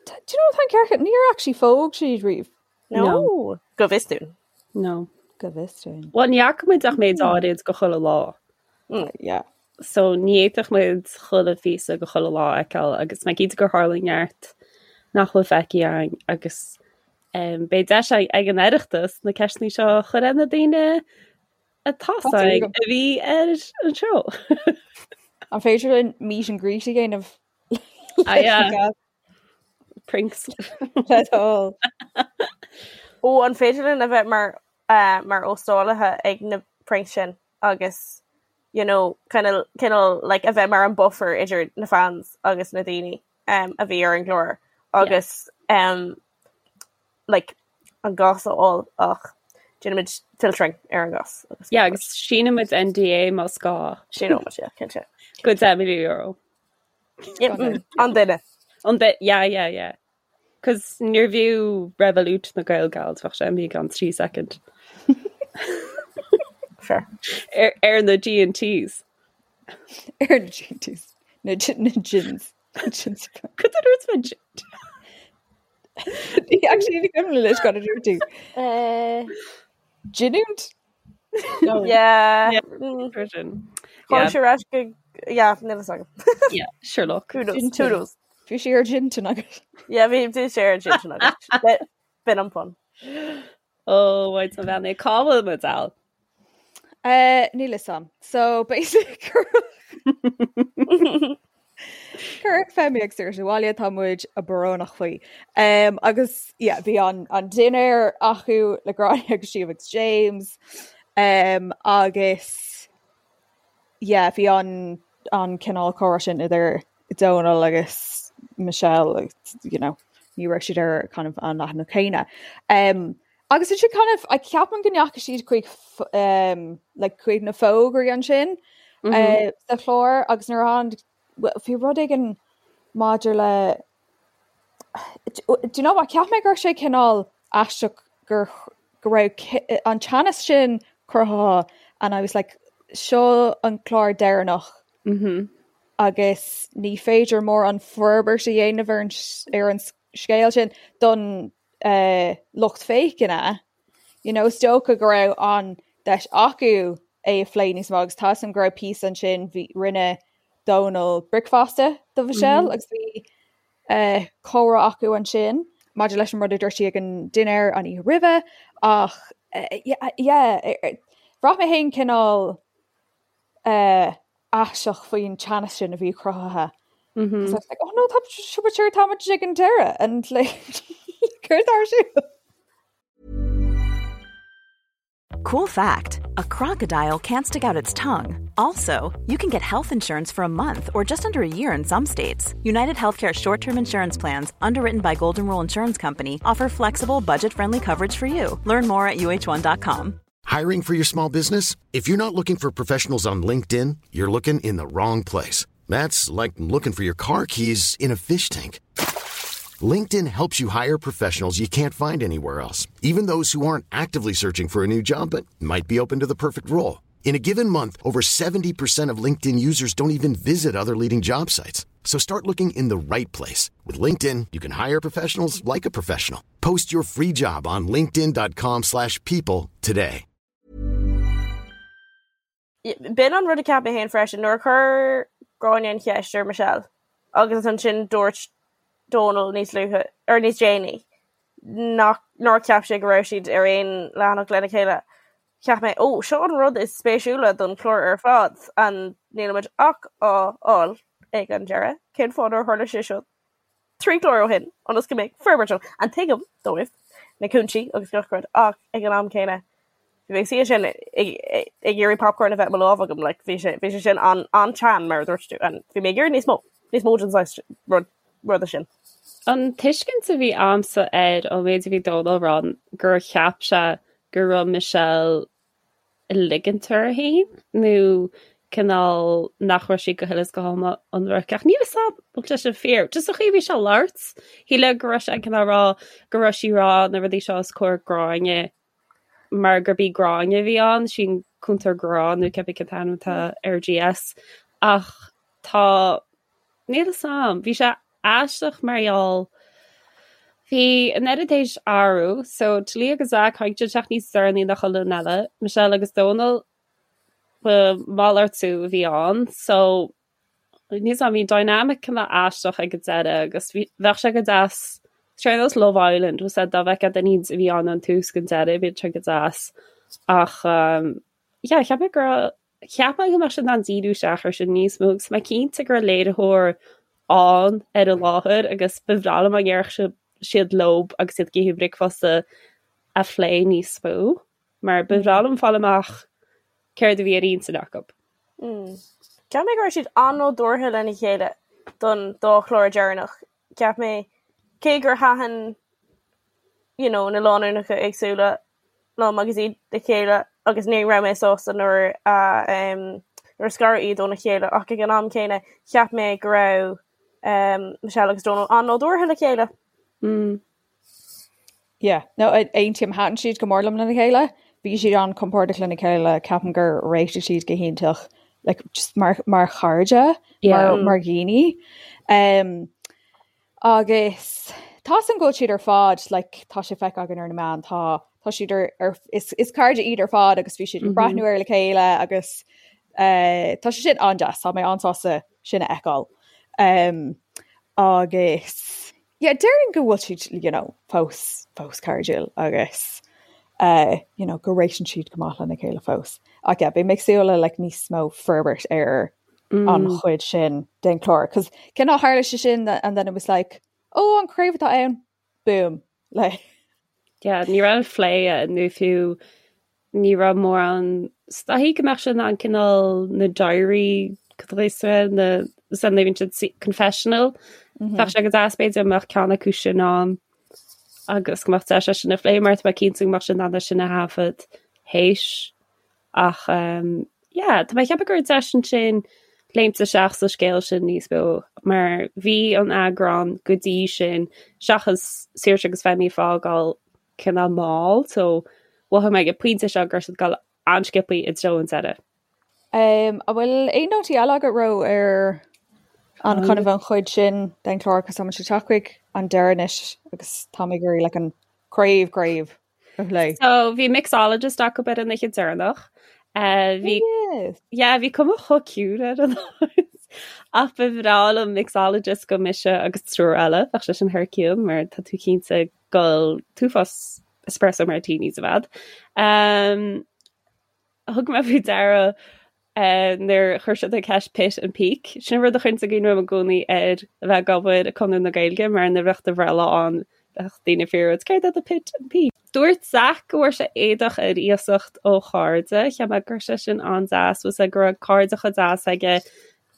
[SPEAKER 5] Do you know tá an ceart níor actually phóg siad riamh.
[SPEAKER 7] No. Go bhfios dúinn.
[SPEAKER 6] No.
[SPEAKER 5] Go bhfios dúinn.
[SPEAKER 6] Well ní fhaca muid ach méid áirid de chuile lá.
[SPEAKER 5] Yeah.
[SPEAKER 6] So ní fhéadfadh muid chuile phíosa de chuile lá a fheiceáil agus mé cinnte gur tharla neart nach bhfuil feicthe againn agus um, beidh deis ag an Oireachtas na ceisteanna seo a chur ar na daoine atá a bhí ar an seó.
[SPEAKER 5] An féidir linn meet and greet a dhéanamh?
[SPEAKER 6] Ah, yeah. Pranks.
[SPEAKER 5] Le do thoil.
[SPEAKER 7] Ó an féidir linn a bheith mar uh, mar óstálaithe ag na pranks sin agus you know, kind of, cineál like, a bheith mar an buffer idir na fans agus na daoine um, a bhí ar an gclár agus um, like, an gas a fháil ach déanaimid filtering ar an gas.
[SPEAKER 6] Agus Yeah, agus síneoimid NDA más gá.
[SPEAKER 7] Síneoimid, yeah, cinnte.
[SPEAKER 6] Go €10 milliún.
[SPEAKER 7] Yeah, an duine.
[SPEAKER 6] An duine, yeah, yeah, yeah. Cos níorbh fhiú Revolut na Gael Gals bheadh sé imithe i gceann 3 second.
[SPEAKER 7] Fair.
[SPEAKER 6] Ar, ar na G&Ts.
[SPEAKER 5] Ar na G&Ts. Na, na gins. Gins.
[SPEAKER 6] Cad a dúirt mé gin?
[SPEAKER 5] Actually, ní cuimhin leis cad a dúirt tú.
[SPEAKER 7] Uh,
[SPEAKER 5] Giniúint?
[SPEAKER 7] No. Yeah.
[SPEAKER 6] Yeah. Version.
[SPEAKER 7] Chuir sé ras go yeah, níl a fhios agam.
[SPEAKER 6] Yeah, sure look.
[SPEAKER 7] Who knows? Who knows?
[SPEAKER 5] Bhí sé ar gin agat.
[SPEAKER 7] Yeah, bhí bhí sé ar gin agat. B'in an pun.
[SPEAKER 6] Oh, wait a bhean cá bhfuil muid Al?
[SPEAKER 5] Uh, níl a fhios agam. So basic Cuireadh Femi agus Saoirse abhaile tá muid brónach faoi. Um, agus yeah, bhí an, an dinnéar acu le Gráinne agus Síomha agus James. Um, agus yeah, bhí an, an cineál comhrá sin idir Donal agus Michelle agus, you know, ní raibh siad ar kind of an leathanach céanna. Um, agus ansin kind of, I ceapaim go ndeachaigh siad chuig um, like, chuig na fógraí ansin mm -hmm. uh, sa chlár agus nuair an bhí rud éigin maidir le Do you know what cheap mé go raibh sé cineál aisteach gur go raibh an teannas sin cruthaithe and I was like seo an clár deireanach
[SPEAKER 6] mm -hmm.
[SPEAKER 5] agus ní féidir mórán forbairt a dhéanamh ar an ar an scéal sin don uh, lucht féachana. You know, is dócha go raibh an deis acu é a phlé níos mó agus tá a fhios agam go raibh píosa ansin bhí rinne Dónal bricfeasta do Michelle mm -hmm. agus bhí uh, comhrá acu ansin maidir leis an rud a dúirt sí ag an dinnéar an oíche roimhe ach uh, yeah, yeah, bhraith mé féin cineál uh, aisteach faoin teannas sin a bhí cruthaithe.
[SPEAKER 6] Mm -hmm.
[SPEAKER 5] So I was like, oh no, tá sure tá muid ag an deireadh and like céard atá ar siúl.
[SPEAKER 3] Cool fact a crocodile can't stick out its tongue. Also, you can get health insurance for a month or just under a year in some states. United Healthcare short term insurance plans, underwritten by Golden Rule Insurance Company, offer flexible, budget friendly coverage for you. Learn more at uh1.com.
[SPEAKER 1] Hiring for your small business? If you're not looking for professionals on LinkedIn, you're looking in the wrong place. That's like looking for your car keys in a fish tank. LinkedIn helps you hire professionals you can't find anywhere else, even those who aren't actively searching for a new job but might be open to the perfect role. In a given month, over 70% of LinkedIn users don't even visit other leading job sites. So start looking in the right place. With LinkedIn, you can hire professionals like a professional. Post your free job on linkedin.com slash people today.
[SPEAKER 7] B'in an rud a cheap mé féin freisin nuair a chuir Gráinne an cheist ar Michelle agus ansin dúirt Dónal níos luaithe or níos déanaí nach nár cheap sé go raibh siad ar aon leathanach lena chéile. Cheap mé, ó, seo an rud is spéisiúla don chlár ar fad and nílimid ach á fháil ag an deireadh. Cén fáth nár tharla sé seo 3 chlár ó shin ionas go mbeadh forbairt ann? And tuigim dóibh na cúinsí agus gach rud ach ag an am céanna bhí mé ag suí ansin ag iarraidh popcorn a bheith i mo lámh agam like bhí sé bhí sé sin an an-teann mar a dúirt tú and bhí mé ag iarraidh níos mó níos mó den saghas rud ruda sin.
[SPEAKER 6] An tuiscint a bhí a'msa air ón méid a bhí Dónal a rá gur cheap sé go raibh Michelle ag ligint uirthi féin nó cineál nach raibh sí go huile is go hiomlán ionraic. Ach níl 'fhios a'm an bhfuil sé sin fíor. Just an chaoi a bhí sé ag labhairt, shílfeá go raibh sé cineál ag rá go raibh sí ag rá na rudaí seo os comhair Gráinne mar gurb í Gráinne a bhí ann, sin. Cúntóir Grá nó cibé cén t-ainm atá ar GS ach tá níl a fhios a'm, bhí sé aisteach mar gheall bhí an oiread théis athrú so Talia agus Zach tháinig siad isteach níos deireanaí ná chuile dhuine eile, Michelle agus Dónal ba malartú a bhí ann so Níl a fhios a'm, bhí dynamic cineál aisteach ag an deireadh agus bhí, bheadh sé go deas, ar nós Love Island, was dá bhfeicfeá duine a bhí ann ón tús go deireadh, bhí sé go deas. Ach um, yeah, cheap mé go raibh, cheap mé go mbeadh siad in ann díriú isteach ar sin níos mó agus mé cinnte go raibh léiritheoir ann ar an láthair agus ba bhreá liom dá ndéarfadh siad leo agus iad ag ithe bricfeasta a phlé níos mó mar ba bhreá liom fáil amach céard a bhí ar intinn acu.
[SPEAKER 7] Cheap mé go raibh siad an-nádúrtha lena chéile don dá chlár deireanach. Cheap mé, cé gur thaitin you know, na lánúineacha éagsúla liom agus iad le chéile agus ní raibh mé sásta nuair a um, nuair a scaradh iad óna chéile ach ag an am céanna cheap mé go raibh um, Michelle agus Donal an-nádúrtha le chéile.
[SPEAKER 6] Mm.
[SPEAKER 5] Yeah, no, aontaím, thaitin siad go mór liom lena chéile. Bhí siad an-compordach lena chéile, ceapaim gur réitigh siad go hiontach like, just mar, mar chairde, yeah. mar, mar dhaoine. Um, agus tá a fhios agam go bhfuil siad ar fad, like, tá sé feicthe againn ar na meáin, tá, tá siad ar, ar is, is cairde iad ar fad agus bhí siad ag mm -hmm. breathnú air le chéile agus uh, tá sé sin an-deas, tá mé an-sásta sin a fheiceáil. Um, agus Yeah, déarfainn go bhfuil siad, you know, fós, fós cairdiúil agus uh, you know, go réitíonn siad go maith lena chéile fós. Ach yeah, beidh mé ag súil le like, níos mó forbairt ar mm. an chuid sin den chlár. Cos cineál tharla sé sin and then it was like, oh, an craobh atá ann, boom. Like.
[SPEAKER 6] Yeah, ní raibh plé nó fiú ní raibh mórán is dóichí go mbeadh sé in ann cineál na diary na san bhíonn siad confessional mhm. Bheadh sé go deas b'fhéidir mbeadh ceann acu sin ann agus go mbeadh deis é sin a phlé mar tá mé cinnte go mbeadh sé in ann sin a thaifead théis ach um, yeah, tá mé ag ceapadh go raibh deis ansin léimt isteach sa scéal sin níos mó mar bhí an eagrán go dtí sin seachas Saoirse agus Femi fágáil cineál mall so mhothaigh mé ag an pointe seo go raibh siad ag dul an-sciobthaí i dtreo an deireadh.
[SPEAKER 5] Um, an bhfuil aon nótaí eile agat Ró ar an kind of an chuid sin den chlár cos táimid ag teacht chuig an deireadh anois agus tá mé ag iarraidh like an craobh craobh a phlé.
[SPEAKER 6] So bhí mixologist acu ar an oíche deireanach. Uh, bhí
[SPEAKER 5] Yes.
[SPEAKER 6] yeah, bhí cuma chomh ciúin ar an áit. Ach ba bhreá liom mixologist go mise agus triúr eile, bheadh sé sin thar cionn mar tá tú cinnte ag ól an t-uafás espresso martinis i bhfad. Um, thug mé faoi deara uh, nuair chuir siad an ceist pit and peak. Sin rud a chuireann i gcuimhne dom i gcónaí ar a bheith ag obair i Conradh na Gaeilge mar nuair a bheadh do bhreithlá ann bheadh daoine ag fiafraí céard é do pit and peak. Dúirt Zach go bhfuair sé éadach ar iasacht ó chairde, cheap mé go raibh sé sin an-deas, was go raibh cairde chomh deas aige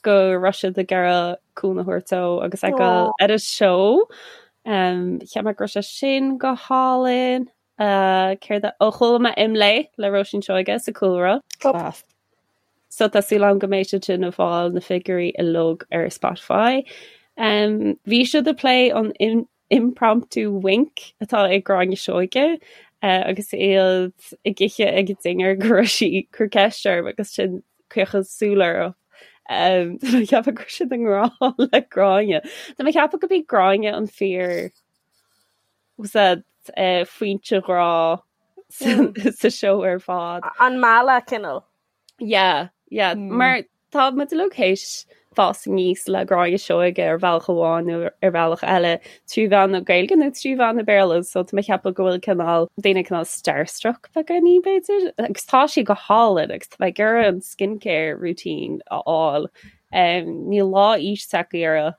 [SPEAKER 6] go raibh siad ag iarraidh cúnamh a thabhairt dó agus ag dul ar an seó. Um, cheap mé go raibh sé sin go hálainn. Uh, céard a ó chuala mé Imlé le Róisín Seoige sa cúlra.
[SPEAKER 5] Class.
[SPEAKER 6] So tá súil agam go mbeidh siad sin ag fáil na figiúirí uilig ar Spotify. Um, bhí siad ag plé an in impromptu wink atá ag Gráinne Seoige uh, agus iad ag ithe ag an dinnéar go raibh sí ag cur ceist orm agus sin caochadh súl orthu. Um, Tá mé ag ceapadh go raibh siad i ngrá le Gráinne. Tá mé ag ceapadh go b'í Gráinne an fíor was that uh, foinse ghrá sa, mm. sa seó ar fad.
[SPEAKER 7] An mealladh cineál.
[SPEAKER 6] Yeah, yeah. Mm. Mar tá muid uilig théis fás aníos le Gráinne Seoige ar bhealach amháin nó ar bhealach eile trí mheán na Gaeilge nó trí mheán na Béarla, so tá mé ag ceapadh go bhfuil cineál daoine cineál starstruck beagáinín b'fhéidir. Agus tá sí go hálainn agus tá mé ag iarraidh an skincare routine a fháil. Um, níl lá aois tagtha uirthi.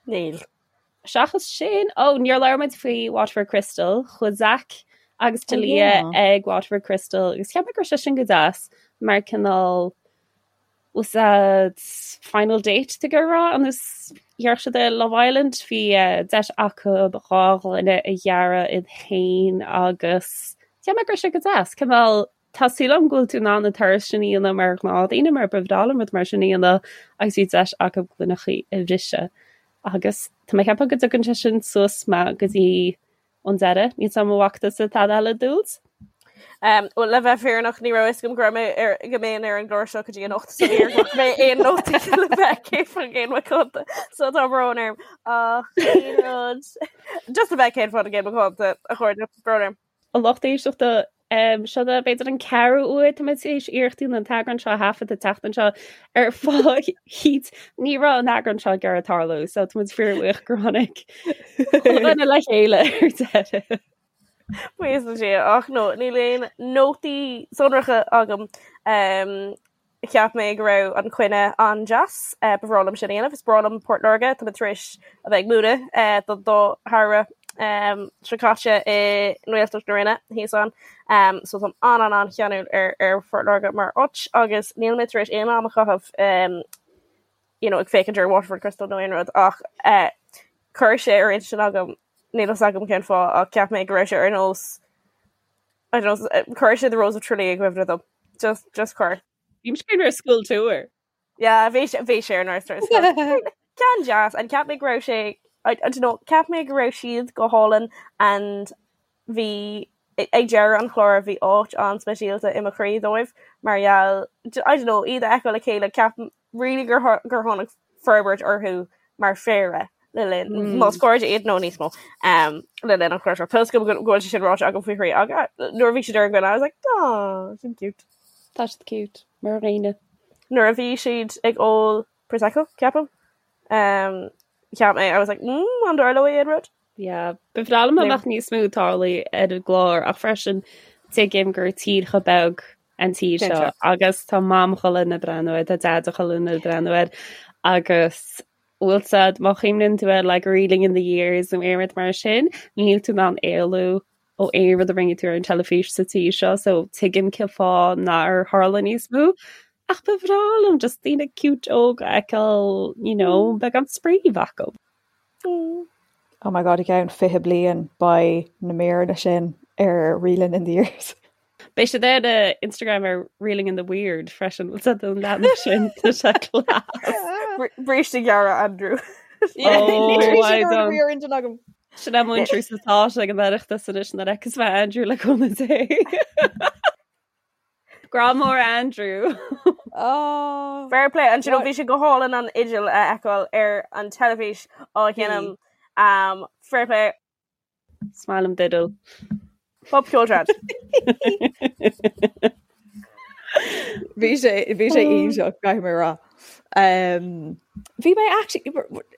[SPEAKER 7] Níl.
[SPEAKER 6] Seachas sin, ó, níor labhair muid faoi Waterford Crystal, chuaigh Zach agus
[SPEAKER 5] Oh,
[SPEAKER 6] Talia
[SPEAKER 5] yeah.
[SPEAKER 6] ag Waterford Crystal agus cheap mé go raibh sé sin go deas mar cineál was that final date to go rá agus dhear siad i Love Island bhí eh, deis acu dhá ghloine a dhearadh iad féin agus cheap mé go raibh sé go deas cineál Tá súil agam go bhfuil tú in ann an turas sin a dhéanamh mar ghnáthdhaoine mar ba bhreá liom rud mar sin a dhéanamh agus bhí deis acu gloineachaí a bhriseadh. Agus tá mé ag ceapadh go dtugann sé sin suas mé go dtí an deireadh. Níl 's agam an bhfaca tusa tada eile Dúilt?
[SPEAKER 7] Um, well, le bheith fírinneach ní raibh fhios agam go raibh mé ar go mbeinn ar an gclár seo go dtí anocht so níor ghlac mé aon nótaí le bheith 100% macánta so tá brón orm ach aon rud just le bheith 100% macánta a chairde brón orm.
[SPEAKER 6] A lucht éisteachta um, seo é b'fhéidir an ceathrú uair tá muid tar éis iarracht a dhéanamh an t-eagrán seo a thaifead an tseachtain seo ar fáth eicínt ní raibh an eagrán seo ag iarraidh tarlú so tá muid fíorbhuíoch gur tháinig chuile dhuine le chéile ar deireadh.
[SPEAKER 7] Buíochas le Dia ach no níl aon nótaí sonracha agam. Um, cheap mé go raibh an coinne an-deas, uh, ba bhreá liom sin a dhéanamh. Is breá liom Port Láirge, tá mé tar éis a bheith ag múineadh uh, don dá shamhradh um, seo caite i nGaeltacht na Rinne thíos ann. Um, so táim an an an-cheanúil ar, ar Phort Láirge mar áit agus níl mé tar éis aon am a chaitheamh um, you know, ag féachaint ar Waterford Crystal nó aon rud ach uh, chuir sé ar intinn agam níl fhios agam cén fáth ach cheap mé go raibh sé ar nós I don't know, chuir sé The Rose of Tralee i gcuimhne dom. Just, just chuir.
[SPEAKER 6] Bhí sé ar school tour.
[SPEAKER 7] Yeah, bhí sé bhí sé ar nós Ceann deas and cheap mé go raibh sé I, I don't know, cheap mé go raibh siad go hálainn and bhí ag deireadh an chláir bhí áit an-speisialta i mo chroí dóibh mar gheall I don't know, iad a fheiceáil le chéile ceap really gur gur tháinig forbairt orthu mar phéire le linn mm. más cairde iad nó níos mó um, le linn an chláir seo. Tá go bhfuil sé sin ráite agam faoi thrí ach nuair a bhí siad ar an gcoinne I was like oh, sin cute.
[SPEAKER 6] Tá siad cute mar dhaoine.
[SPEAKER 7] Nuair a bhí siad ag ól Prosecco ceapaim um, cheap mé I was like mm, an dtarlóidh aon rud?
[SPEAKER 6] Yeah, ba bhreá liom dá mbeadh níos mó ag tarlú ar an gclár ach freisin tuigim gur tír chomh beag an tír seo agus tá mam chuile dhuine ag breathnú air, tá deaid chuile dhuine ag breathnú air agus bhfuil fhios a'd má chuimhníonn tú ar like Reeling in the Years nó aon rud mar sin, níl tú in ann éalú ó aon rud a rinne tú ar an teilifís sa tír seo so tuigim cén fáth nár tharla níos mó. Ach ba bhreá liom just daoine cute óg a fheiceáil, you know, beagán spraoi a bheith acu.
[SPEAKER 5] Oh my god, i gceann 20 bliain beidh na míreanna sin ar Reeling in the Years.
[SPEAKER 6] Beidh siad ar uh, Instagram ar Reeling in the Weird freisin bhfuil fhios a'd an leathanach sin tá sé
[SPEAKER 7] class. Bríste gearra Andrew.
[SPEAKER 6] Oh, I don't. Sin é múinteoir sa tá ag an Oireachtas anois nuair a fheicfeas mé Andrew le cúnamh Dé. Grá mór Andrew.
[SPEAKER 5] Oh.
[SPEAKER 7] Fair play and you know bhí sé go hálainn an fhidil a fheiceáil ar an teilifís á sheinm um, fair play
[SPEAKER 6] Is maith liom d'fhidil.
[SPEAKER 7] Bob ceoltrad.
[SPEAKER 5] Bhí sé bhí sé iontach caithfidh mé rá. Um, bhí mé actually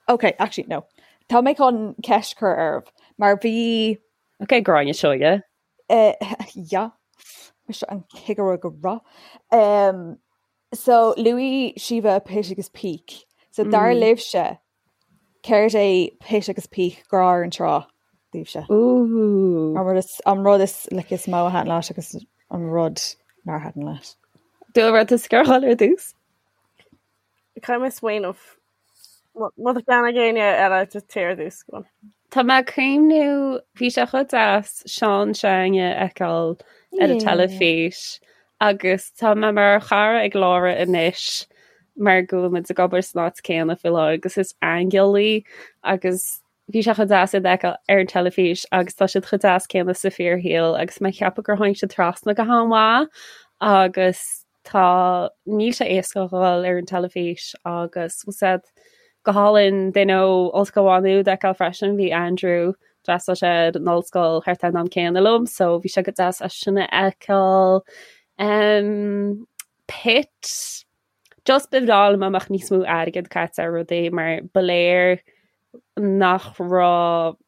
[SPEAKER 5] okay, actually no. Tá mé chun ceist a chur oraibh mar bhí
[SPEAKER 6] Ok, Gráinne Seoige.
[SPEAKER 5] Uh, yeah. Mise an cigire go rath. Um, so luaigh Síomha Pit agus Peak. So dar mm. libhse céard é Pit agus Peak grá ar an trá daoibhse.
[SPEAKER 6] Ooh.
[SPEAKER 5] An rud is an rud is like, is mó a thaitin leat agus an rud nár thaitin leat.
[SPEAKER 6] Dúlra tú scáil ar dtús?
[SPEAKER 7] Caithfidh mé smaoineamh. Má tá ceann ag éinne eile just téir ar dtús. Go on.
[SPEAKER 6] Tá mé ag cuimhniú, bhí sé chomh deas Seán s'againne a fheiceáil ar an teilifís agus tá mé mar chara ag Laura anois mar go bhfuil muid ag obair san áit céanna faoi láthair agus is aingeal í agus bhí sé chomh deas iad a fheiceáil ar an teilifís agus tá siad chomh deas céanna sa fíorshaol agus mé ag ceapadh gur tháinig siad trasna go han-mhaith agus Tá, níl sé éasca a dhul ar an teilifís agus bhfuil fhios a'd go hálainn duine ó Ollscoil Mhá Nuad a fheiceáil freisin, bhí Andrew, d'fhreastail sé ar an ollscoil thart ar an am céanna liom so bhí sé go deas é sin a fheiceáil. Um, Pit, just ba bhreá liom dá mbeadh níos mó airgead caite ar rudaí mar ba léir nach raibh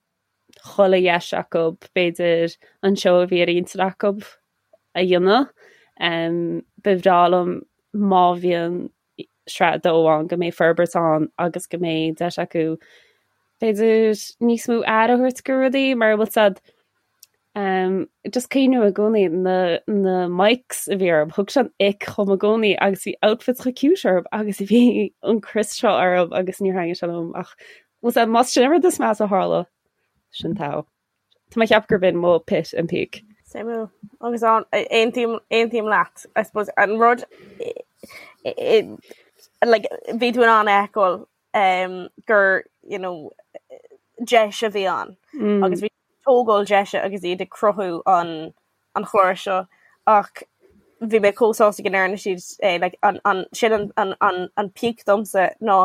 [SPEAKER 6] chuile dheis acu, b'fhéidir, an seó a bhí ar intinn acu a dhéanamh. Ba bhreá liom má bhíonn sraith 2 ann go mbeidh forbairt ann agus go mbeidh deis acu b'fhéidir níos mó aire a thabhairt go rudaí mar bhfuil fhios a'd just cuimhním i gcónaí na na mics a bhí orthu, thug sé an ick dhom i gcónaí agus bhí outfits chomh cute orthu agus bhí an crios seo orthu agus níor thaitnigh sé liom ach Bhfuil fhios a'd, más sin an rud is measa a tharla, sin togha. Tá mé ag ceapadh gurb in mo pit and peak.
[SPEAKER 7] Suimiúil. Agus an, aontaím, aontaím leat, I suppose, an rud, like, bhí tú in ann a fheiceáil um, gur, you know, deis a bhí ann. Mm. Agus bhí tógáil deise agus iad ag cruthú an. an chláir seo ach bhí mé chomh sásta go ndearna siad é like an an sin an an an an peak domsa ná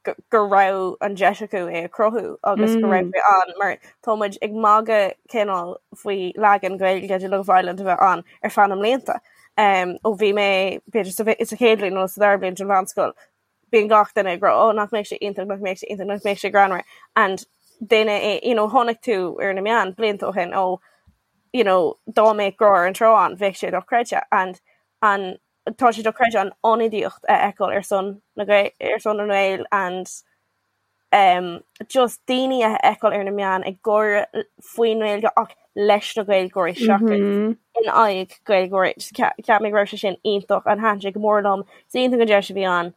[SPEAKER 7] go go raibh an deis acu é a chruthú agus go raibh sé ann mar tá muid ag magadh cineál faoi leagan Gaeilge de Love Island a bheith ann ar feadh na mblianta. Um, ó bhí mé b'fhéidir sa sa chéad bhliain nó sa dara bliain den mheánscoil bíonn gach duine ag rá oh nach mbeidh sé iontach, nach mbeidh sé iontach, nach mbeidh sé greannmhar and duine é you know chonaic tú ar na meáin blianta ó shin ó you know dá mbeadh Grá ar an Trá ann bheadh sé dochreidte and an tá sé dochreidte an ionadaíocht a fheiceáil ar son na ar son na nGael and um, just daoine a fheiceáil ar na meáin ag gáire faoin nGaeilge ach leis na Gaeilgeoirí seachas mm -hmm. in aghaidh Gaeilgeoirí. Cheap mé go raibh sé sin iontach and thaitin sé go mór liom. Is iontach an deis a bhí ann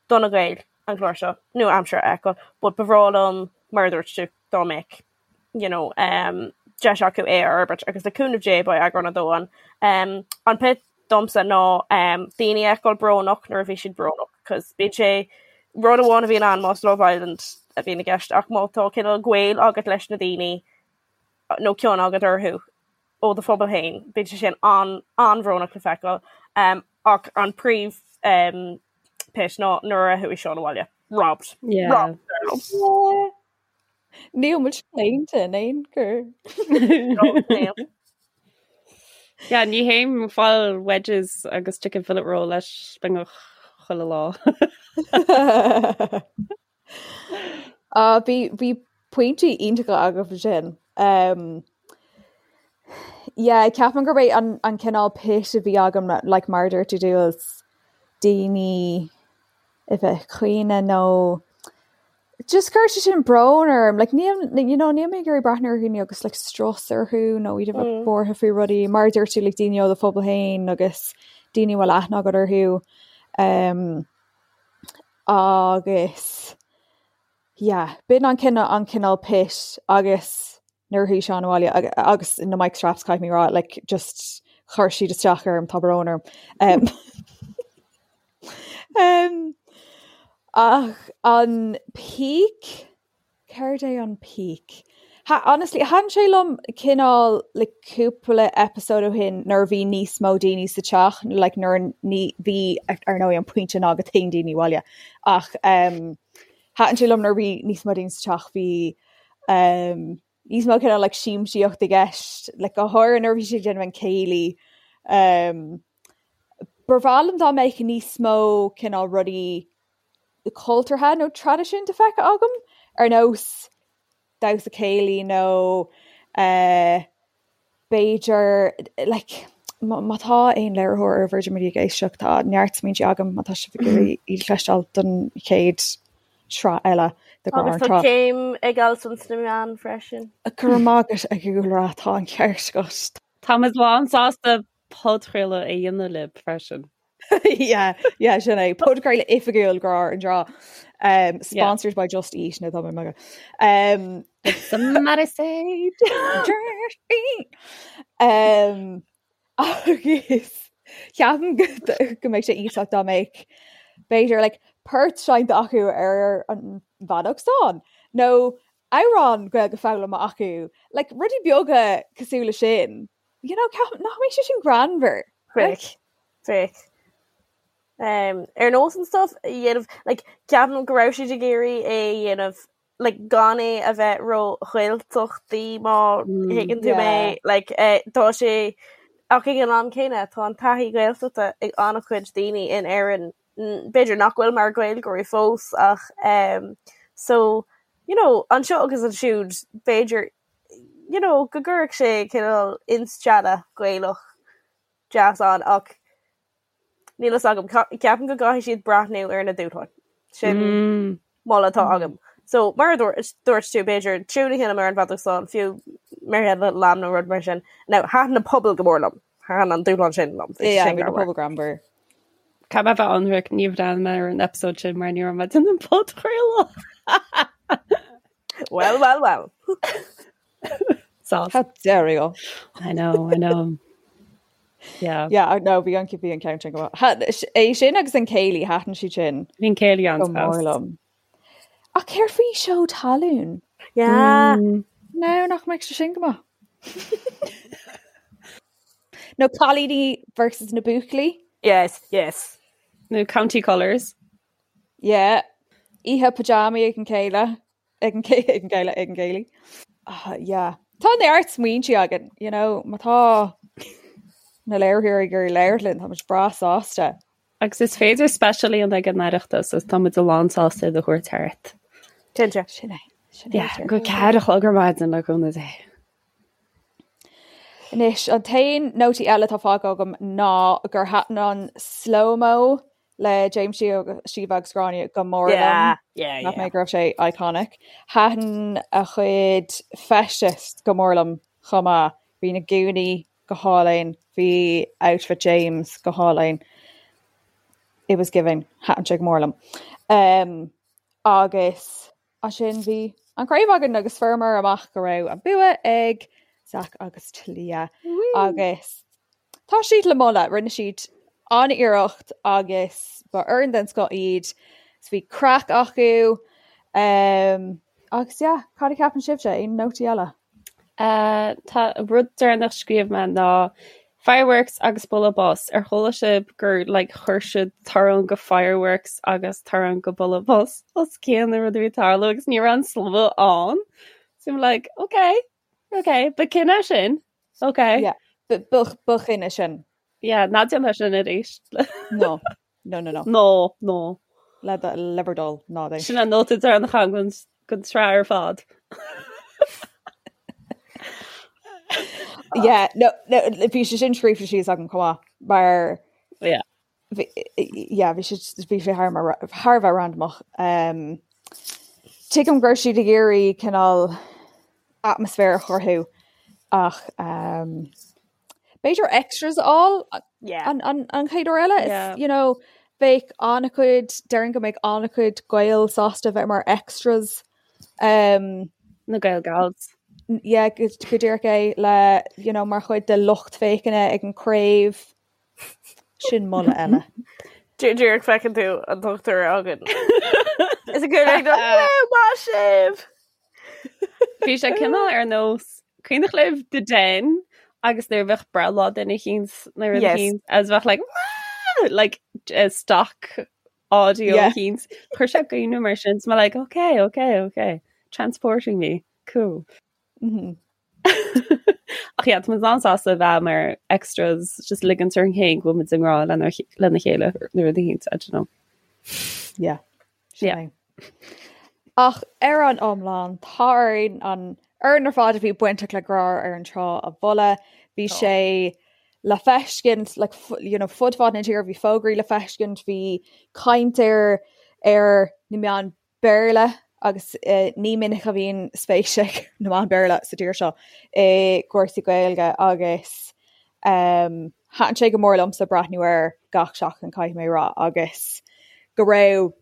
[SPEAKER 7] do na Gaeil an clár seo nua-aimseartha a fheiceáil, but ba bhreá liom mar a dúirt tú dá mbeadh you know, um, deis acu é a fhorbairt agus le cúnamh Dé beidh eagrán a dó ann. Um, an pit domsa ná um, daoine a fheiceáil brónach nuair a bhí siad brónach, cos bíonn sé rud amháin a bhíonn ann más Love Island a bhíonn i gceist ach má tá cineál gaol agat leis na daoine nó cion agat orthu ó do phobal féin, bíonn sé sin an an-bhrónach le feiceáil. Um, ach an príomh um, pit ná nuair a chuaigh Seán abhaile. Robbed.
[SPEAKER 6] Yeah.
[SPEAKER 7] Robbed.
[SPEAKER 5] Yeah. Níl muid claonta in aon chor.
[SPEAKER 6] Yeah, ní théim ag fáil wedges agus chicken fillet roll leis beagnach chuile lá.
[SPEAKER 5] Ah, bhí bhí pointí iontacha agaibh ansin. Um, yeah, ceapaim gurb é an, an cineál pit a bhí agam like, mar a dúirt tú Jules, daoine a bheith ag caoineadh nó just chuir sé sin brón orm like níl you know níl mé ag iarraidh breathnú ar dhaoine agus like strus orthu nó iad a bheith mm. buartha faoi rudaí mar a dúirt tú like daoine ó do phobal féin agus daoine a bhfuil aithne agat orthu um, agus yeah b'in an cineál an cineál pit agus nuair a chuaigh Seán abhaile agus na mic straps caithfidh mé rá like just chuir siad isteach orm tá brón orm. Um, um, ach an peak Céard é an peak? Ha, honestly, thaitin sé liom cineál le cúpla episode ó shin nuair a bhí níos mó daoine sa teach, like nuair ní bhí ar ndóigh an pointe ná go dtéann daoine abhaile ach um, thaitin sé liom nuair a bhí níos mó daoine sa teach bhí um, níos mó cineál like siamsaíocht i gceist like go háirithe nuair a bhí siad ag déanamh an céilí um, Ba bhreá liom dá mbeadh níos mó cineál rudaí cultúrtha nó traidisiúnta feicthe agam ar nós damhsa céilí nó eh, b'fhéidir like má tá aon léiritheoir ar Virgin Media ag éisteacht tá neart smaointe agam má tá sibh ag iarraidh iad a chloisteáil don chéad sraith eile de Ghrá ar
[SPEAKER 7] Agus
[SPEAKER 5] an
[SPEAKER 7] tá
[SPEAKER 5] Trá.
[SPEAKER 7] céim ag Alison sna meáin freisin.
[SPEAKER 5] Go raibh maith agat a Dhúlra, tá an ceart agat.
[SPEAKER 6] Táimid lán sásta podchraoladh a dhéanamh libh freisin.
[SPEAKER 5] Yeah, yeah, sin é. Podchraoladh oifigiúil Grá ar an dTrá. Um, sponsored by Just Eat nó tá mé ag magadh. Um,
[SPEAKER 6] Somebody say
[SPEAKER 5] Just Eat. Um, agus ceapaim go go mbeadh sé iontach dá mbeadh b'fhéidir like, port seinnte acu ar an bhfeadóg stáin nó amhrán Gaeilge foghlamtha acu, like, rudaí beaga cosúil le sin. You know, ceapaim nach mbeadh sé sin greannmhar.
[SPEAKER 7] Bheadh, bheadh. Um, ar nós an stuff a dhéanamh, like, ceapaim go raibh siad ag iarraidh é a dhéanamh, like, gan é a bheith ró-Ghaeltachtaí má thuigeann tú mé,
[SPEAKER 5] Yeah.
[SPEAKER 7] like, eh, tá sé, ach ag an am céanna tá an taithí Gaeltachta ag an-chuid daoine in Éirinn, b'fhéidir nach bhfuil mar Ghaeilgeoirí fós ach um, so, you know, anseo agus ansiúd b'fhéidir you know, go gcuirfeadh sé cineál instealladh Gaelach deas ann ach níl fhios agam, ceapaim go gcaithfidh siad breathnú ar na dúshláin. Sin mm. moladh atá agam. So mar a dúirt tú b'fhéidir tiún a sheinm ar an bhfeadóg stáin fiú Mary Had a Little Lamb nó rud mar sin. Now thaitin na pubaill go mór liom. Thaitin an dúshlán sin liom.
[SPEAKER 5] Yeah, bhí na pubaill greannmhar.
[SPEAKER 6] Caithfidh mé a bheith ionraic níor bhreathnaigh mé ar an episode sin mar ní raibh mé ag déanamh an podchraoladh.
[SPEAKER 7] Well, well, well.
[SPEAKER 6] Sauce.
[SPEAKER 5] How dare you?
[SPEAKER 6] I know, I know. Yeah.
[SPEAKER 5] Yeah, no, bhí an bhí an ceann sin go maith. É sin agus an céilí thaitin siad sin.
[SPEAKER 6] Bhí an céilí
[SPEAKER 5] go mór liom. Ach céard faoi seó talún?
[SPEAKER 7] Yeah.
[SPEAKER 5] Mm. No, nach mbeadh sé sin go maith. Nó cailíní versus na buachaillí.
[SPEAKER 7] Yes, yes.
[SPEAKER 6] Nó County Colours.
[SPEAKER 5] Yeah. Oíche pajamaí ag an chéile. Ag an ag an gcéile ag an gcéilí. Ah, yeah. Tá neart smaointe againn, you know, má tá na léiritheoirí ag iarraidh labhairt linn, tá muid breá sásta.
[SPEAKER 6] Agus is féidir speisial a dhéanamh ag an Oireachtas agus tá muid lán sásta iad a thabhairt thart.
[SPEAKER 7] Cinnte.
[SPEAKER 5] Sin é. Sin é.
[SPEAKER 6] Yeah, go 4 a chlog ar maidin le cúnamh Dé.
[SPEAKER 5] Anois, an t-aon nótaí eile atá fágtha agam ná gur thaitin an slow-mo le James Síomha agus Gráinne go mór liom. Cheap mé go raibh sé iconic. Thaitin a chuid feistis go mór liom chomh maith. Bhí na gúnaí go hálainn, bhí outfit James go hálainn. It was giving. Thaitin sé go mór liom. Um, agus ansin bhí an craobh againn agus fuaireamar amach go raibh an bua ag Zach agus Talia agus tá siad le moladh, rinne siad an-iarracht agus ba fhoireann den scoth iad, so bhí craic acu um, agus yeah, cad a cheapann sibhse, aon nótaí eile?
[SPEAKER 6] Uh, tá rud deireanach scríobh mé ná fireworks agus bualadh bos. Ar chuala sibh gur like, chuir siad torann go fireworks agus torann go bualadh bos os cionn an rud a bhí ag tarlú agus ní raibh an slua ann. So I'm like, okay, okay, ba cinneadh sin. Okay.
[SPEAKER 5] Yeah, ba ba chinneadh sin.
[SPEAKER 6] Yeah, ná déan sin arís.
[SPEAKER 5] No. No, no, no.
[SPEAKER 6] No, no.
[SPEAKER 5] Le le bhur dtoil, ná déan.
[SPEAKER 6] Sin an nóta deireanach agam den tsraith ar fad.
[SPEAKER 5] Yeah, no, no, bhí sé sin scríofa síos agam chomh maith, mar
[SPEAKER 6] Yeah.
[SPEAKER 5] bhí yeah, bhí sé bhí sé thar mar thar a bheith randamach. Um, tuigim go raibh siad ag iarraidh cineál atmaisféar a chruthú ach um, b'fhéidir extras a fháil
[SPEAKER 7] Yeah.
[SPEAKER 5] an, an, an chéad uair eile.
[SPEAKER 6] Yeah.
[SPEAKER 5] Is, you know, bheadh an-chuid, déarfainn go mbeadh an-chuid Gael sásta bheith mar extras. Um,
[SPEAKER 6] Na Gael Gals.
[SPEAKER 5] yeah, go, go díreach é le, you know, mar chuid de lucht féachana ag an craobh. Sin moladh eile.
[SPEAKER 7] Díreach feiceann tú an dochtúir againn. Is a good maith sibh!
[SPEAKER 6] Bhí sé cineál ar nós cuimhneach libh The Den agus nuair a bheadh breithlá duine eicínt nó rud
[SPEAKER 7] Yes.
[SPEAKER 6] eicínt agus bheadh like "Wah!" like uh, stock audio
[SPEAKER 5] Yeah.
[SPEAKER 6] eicínt. Chuir sé i gcuimhne mar sin so mé like okay okay okay transporting me cool.
[SPEAKER 5] Mm -hmm.
[SPEAKER 6] Ach yeah, tá muid an-sásta a bheith mar extras just ligint orainn féin go bhfuil muid i ngrá lena lena chéile nó rud eicínt I don't know.
[SPEAKER 5] Yeah. Sin
[SPEAKER 6] Yeah.
[SPEAKER 5] é. Ach ar an iomlán, tá orainn an fhoireann ar fad a bhí bainteach le Grá ar an Trá a mholadh. Bhí
[SPEAKER 7] Tá.
[SPEAKER 5] sé le feiscint like, fu- you know, fud fad na tíre, bhí fógraí le feiscint, bhí caint air ar na meáin Béarla agus eh, ní minic a bhíonn spéis ag na meáin Béarla sa tír seo i gcúrsaí Gaeilge agus um, thaitin sé go mór liomsa breathnú air gach seachtain caithfidh mé a rá agus go raibh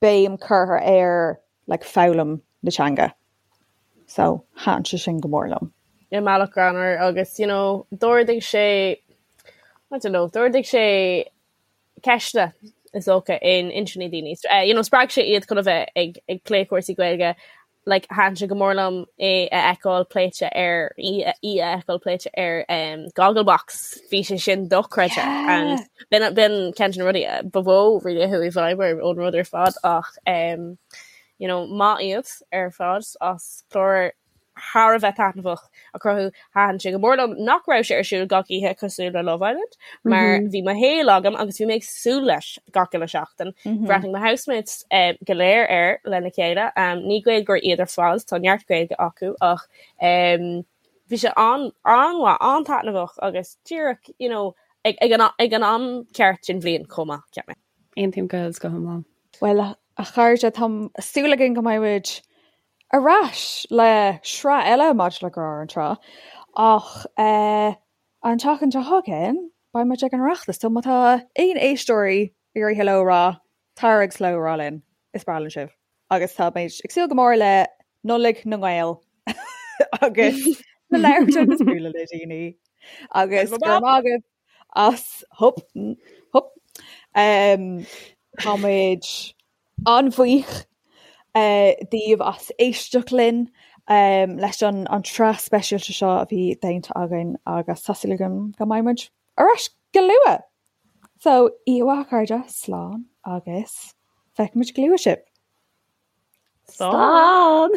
[SPEAKER 5] béim curtha ar like, foghlaim na teanga. So thaitin sé sin go mór liom.
[SPEAKER 7] I mbealach greannmhar agus you know, d'ardaigh sé I don't know, d'ardaigh sé ceisteanna is dócha in intinní daoine. Uh, you know, spreag sé iad chun a bheith ag, ag plé cúrsaí Gaeilge like thaitin sé go mór liom é a fheiceáil pléite ar í a fheiceáil pléite ar um, Gogglebox bhí sé sin dochreidte
[SPEAKER 5] Yeah.
[SPEAKER 7] and b'in b'in ceann de na rudaí uh, ba mhó really a chuaigh i bhfeidhm orm ón rud ar fad ach um, you know, maith iad ar fad as clár thar a bheith taitneamhach a chruthú. Thaitin sé go mór liom nach raibh sé ar siúl gach oíche cosúil le Love Island mar bhí mo shaol agam agus bhí mé ag súil leis gach uile seachtain. Bhreathnaigh mo housemates go léir air lena chéile. Ní Gaeilgeoirí iad ar fad, tá neart Gaeilge acu ach bhí sé an-mhaith, an-taitneamhach agus díreach you know ag an am ceart den bhliain chomh maith, cheap mé.
[SPEAKER 6] Aontaím go go hiomlán.
[SPEAKER 5] Bhuel, a chairde, tá súil againn go mbeidh muid ar ais le sraith eile maidir le Grá ar an Trá ach an tseachtain seo chugainn beidh muid ag an Oireachtas so má tá aon éisteoirí ag iarraidh hello a rá, tar agus hello a rá linn, is breá linn sibh agus tá muid ag súil go mór le Nollaig na nGael agus le labhairt agus bualadh le daoine agus go raibh maith agaibh as hup hup tá muid An-bhuíoch daoibh as éisteacht linn. um, leis an an tsraith speisialta seo a bhí déanta againn agus tá súil agam go mbeidh muid ar ais go luath. So, oíche mhaith a chairde, slán agus feicfidh muid go luath sibh.
[SPEAKER 6] Slán!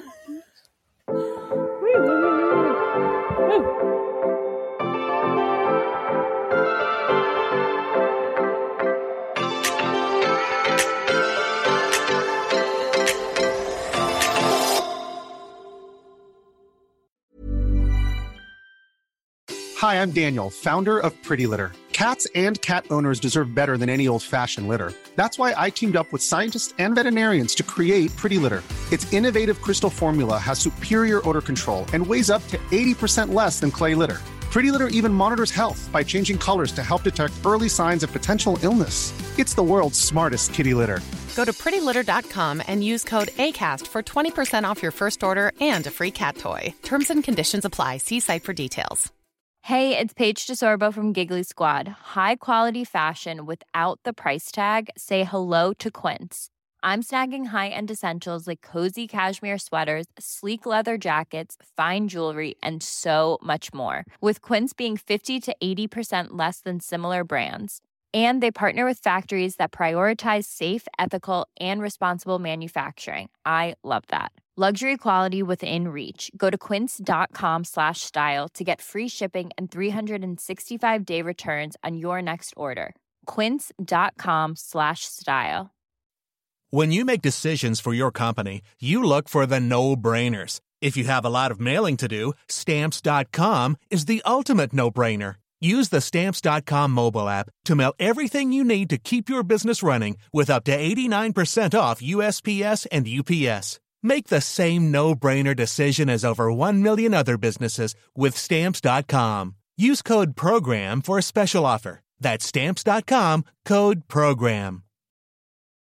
[SPEAKER 8] Hi, I'm Daniel, founder of Pretty Litter. Cats and cat owners deserve better than any old fashioned litter. That's why I teamed up with scientists and veterinarians to create Pretty Litter. Its innovative crystal formula has superior odor control and weighs up to 80% less than clay litter. Pretty Litter even monitors health by changing colors to help detect early signs of potential illness. It's the world's smartest kitty litter.
[SPEAKER 9] Go to prettylitter.com and use code ACAST for 20% off your first order and a free cat toy. Terms and conditions apply. See site for details.
[SPEAKER 10] Hey, it's Paige DeSorbo from Giggly Squad. High quality fashion without the price tag. Say hello to Quince. I'm snagging high-end essentials like cozy cashmere sweaters, sleek leather jackets, fine jewelry, and so much more. With Quince being 50 to 80% less than similar brands. And they partner with factories that prioritize safe, ethical, and responsible manufacturing. I love that. Luxury quality within reach. Go to quince.com slash style to get free shipping and 365 day returns on your next order. Quince.com slash style.
[SPEAKER 11] When you make decisions for your company, you look for the no brainers. If you have a lot of mailing to do, stamps.com is the ultimate no brainer. Use the stamps.com mobile app to mail everything you need to keep your business running with up to 89% off USPS and UPS. Make the same no brainer decision as over 1 million other businesses with stamps.com. Use code PROGRAM for a special offer. That's stamps.com code PROGRAM.